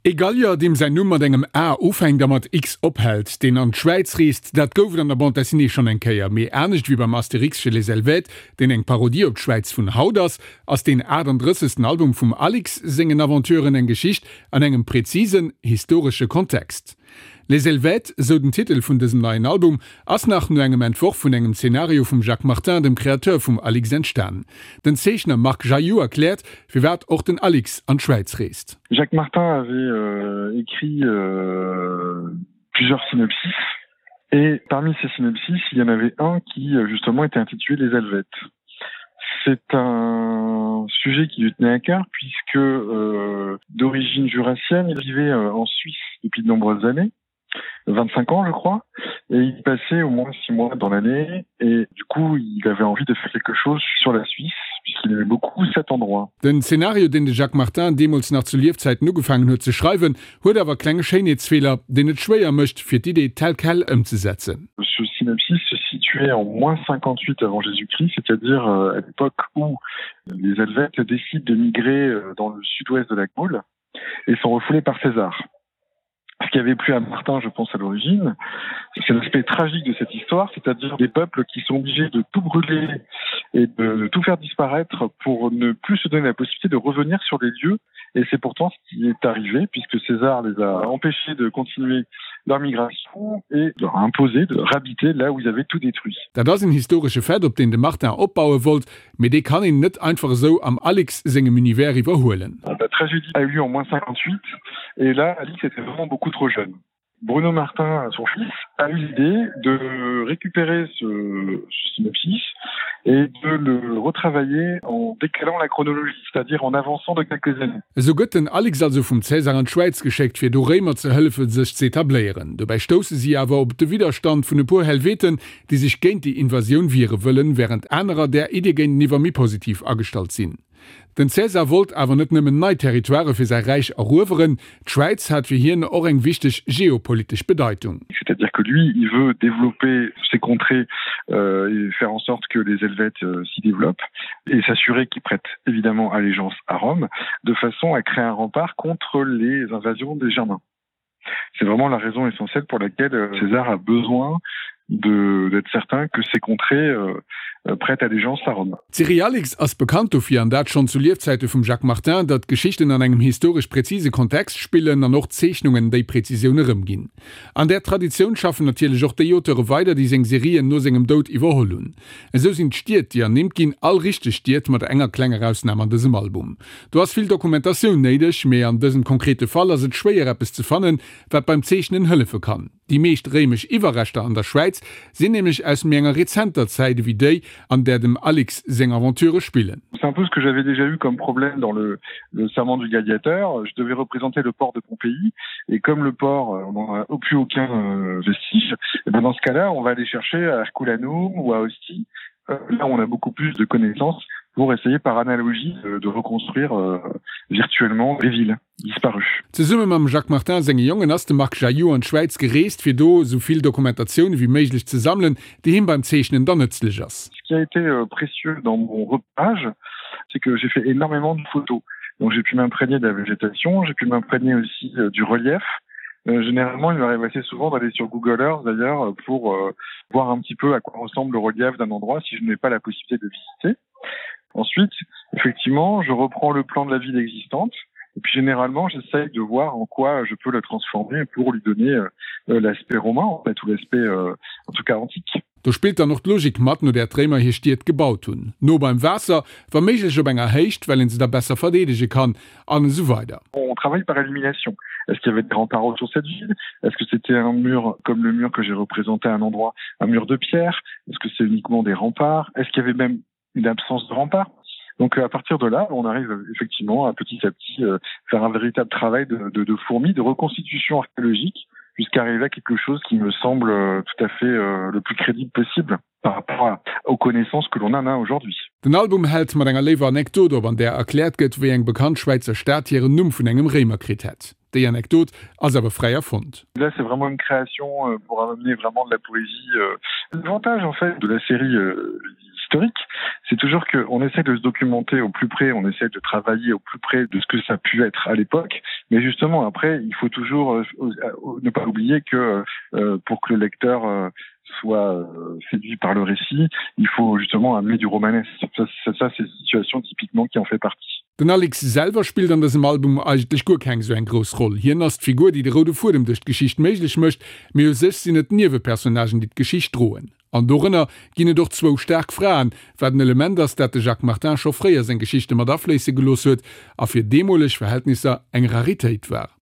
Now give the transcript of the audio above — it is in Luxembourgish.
E Gallier, deem säin Numm mat engem A ufänkt a mat X ophält, deen an d'Schwäiz reest, dat gouf et an der Bande dessinée schonn eng Kéier. Mee anescht wéi beim Astérix chez les Helvètes, deen eng Parodie op d'Schwäiz vun haut ass, ass deen 38. Album vum Alix sengen Aventuren eng Geschicht an engem präzisen historesche Kontext. Les Helvètes, esou den Titel vun dësem neien Album, ass nach no engem Entworf vun engem Zenario vum Jacques Martin, dem Kreateur vum Alix, entstan. Den Zeechner Marc Jailloux erkläert, firwat och den Alix an d'Schwäiz reest. Jacques Martin avait écrit plusieurs synopsis et parmi ces synopsis, il y en avait un qui justement était intitulé Les Helvètes. C'est un sujet qui lui tenait à cœur puisque euh, d'origine jurassienne, il vivait euh, en Suisse depuis de nombreuses années. 25 ans je crois et il passait au moins six mois dans l'année et du coup il avait envie de faire quelque chose sur la Suisse puisqu'il aimait beaucoup cet endroit. Den Szenario deen de Jacques Martin deemools nach zu Liefzäiten ugefaangen huet ze schreiwen, huet awer klenge Schéinheetsfeeler, deen et schwéier mécht fir d'Idee tel quel ëmzesetzen. Ce synopsis se situait en moins 58 avant Jésus-Christ, c'est-à-dire euh, à l'époque où les Helvètes décident de migrer euh, dans le sud-ouest de la Gaule et sont refoulés par César. Ce qui avait plu à Martin, je pense à l'origine, c'est l'aspect tragique de cette histoire, c'est-à-dire des peuples qui sont obligés de tout brûler et de tout faire disparaître pour ne plus se donner la possibilité de revenir sur les lieux. Et c'est pourtant ce qui est arrivé puisque César les a empêchés de continuer leur migration et leur a imposé de réhabiter là où ils avaient tout détruit. Dat ass en historesche Fait, op deen de Martin opbaue wollt, mee dee kann een net einfach esou am Alix sengem Univers iwwerhuelen. La tragédie a eu lieu en moins 58 et là Alix était vraiment beaucoup trop jeune. Bruno Martin, son fils, a eu l'idée de récupérer ce, ce synopsis et de le retravailler en décalant la chronologie, c'est-à-dire en avançant de quelques années. Esou gëtt den Alix also vum Cäsar an d'Schwäiz geschéckt, fir do Réimer ze hëllefe sech z'etabléieren. Dobäi stousse si awer op de Widderstand vun e puer Helveten, déi sech géint déi Invasioun wiere wëllen, wärend anerer där Idee géinteniwwer méi positiv agestallt sinn. Den Cäsar wollt awer net nëmmen nei Territoirë fir säi Räich erueweren, d'Schwäiz hat fir hien och eng wichteg geopolitesch Bedeitung. C'est-à-dire que lui, il veut développer ses contrées euh, et faire en sorte que les Helvètes euh, s'y développent et s'assurer qu'ils prêtent évidemment allégeance à Rome de façon à créer un rempart contre les invasions des Germains. C'est vraiment la raison essentielle pour laquelle euh, César a besoin d'être certain que ces contrées euh, euh, prêtent allégeance à Rome. D'Serie Alix ass bekannt dofir, an dat schonn zu Liefzäite vum Jacques Martin, datt d'Geschichten an engem historesch präzise Kontext spillen an och d'Zeechnungen déi Präzisioun erëmginn. An där Traditioun schaffen natierlech och déi Auteure weider, déi seng Serien no sengem Doud iwwerholl hunn. Esou sinn d'Stied, déi ernimmt ginn, all richteg Stied, mat enger klenger Ausnam an dësem Album. Do ass vill Dokumentatioun néideg, mee an dësem konkrete Fall ass et schwéier eppes ze fannen, wat beim Zeechnen hëllefe kann. Déi meescht réimesch Iwwerreschter an der Schwäiz sinn nämlech aus méi enger rezenter Zäit ewéi déi, an där dem Alix seng Aventurë spillen. C'est un peu ce que j'avais déjà eu comme problème dans le le serment du gladiateur, je devais représenter le port de Pompéi et comme le port on n'en a plus aucun euh, vestige, et ben dans ce cas-là, on va aller chercher à Herculanum ou à Ostie, euh, là où on a beaucoup plus de connaissances pour essayer par analogie de, de reconstruire euh, virtuellement les villes disparues. Zesumme mam Jacques Martin senge Jongen ass de Marc Jailloux an d'Schwäiz gereest, fir do esou vill Dokumentatioun ewéi méiglech ze sammelen, déi him beim Zeechnen dann nëtzlech ass. Ce qui a été euh, précieux dans mon repérage, c'est que j'ai fait énormément de photos. Donc j'ai pu m'imprégner de la végétation, j'ai pu m'imprégner aussi euh, du relief. Euh, généralement, il m'arrive assez souvent d'aller sur Google Earth d'ailleurs pour euh, voir un petit peu à quoi ressemble le relief d'un endroit si je n'ai pas la possibilité de visiter. Ensuite, effectivement, je reprends le plan de la ville existante et puis généralement j'essaye de voir en quoi je peux le transformer pour lui donner euh, l'aspect romain en fait ou l'aspect euh, en tout cas antique. Do spillt dann och d'Logik mat, no där d'Réimer hir Stied gebaut hunn, no beim Waasser, wa méiglech op enger Héicht, well een se da besser verdeedege kann, an esou weider. On travaille par élimination. Est-ce qu'il y avait des remparts autour de cette ville? Est-ce que c'était un mur comme le mur que j'ai représenté à un endroit, un mur de pierre? Est-ce que c'est uniquement des remparts? Est-ce qu'il y avait même une absence de remparts? Donc à partir de là, on arrive effectivement à petit à petit euh, faire un véritable travail de, de, de fourmi, de reconstitution archéologique jusqu'à arriver à quelque chose qui me semble euh, tout à fait euh, le plus crédible possible par rapport à, aux connaissances que l'on en a aujourd'hui. Den Album hält mat enger léiwer Anekdot op, an där erkläert gëtt, wéi eng bekannt Schwäizer Stad hiren Numm vun engem Réimer kritt hätt. Déi Anekdot ass awer fräi erfonnt. Là c'est vraiment une création euh, pour amener vraiment de la poésie. Euh. L'avantage en fait de la série euh, historique, c'est toujours qu'on essaie de se documenter au plus près, on essaie de travailler au plus près de ce que ça a pu être à l'époque. Mais justement, après, il faut toujours euh, euh, ne pas oublier que euh, pour que le lecteur euh, soit euh, séduit par le récit, il faut justement amener du romanesque. Ça, ça, ça c'est une situation typiquement qui en fait partie. Den Alex selwer spillt an dësem Album eigentlech guer keng sou eng grouss Roll. Hien ass d'Figur, déi de roude Fuedem duerch d'Geschicht méiglech mécht, mee u sech sinn et d'Niewepersonnagen, déi d'Geschicht droen. An dorënner ginn et och zwou staark Fraen, wat en Element ass, dat de Jacques Martin scho fréi a seng Geschichte mat afléisse gelooss huet a fir deemoleg Verhältnisser eng Raritéit war.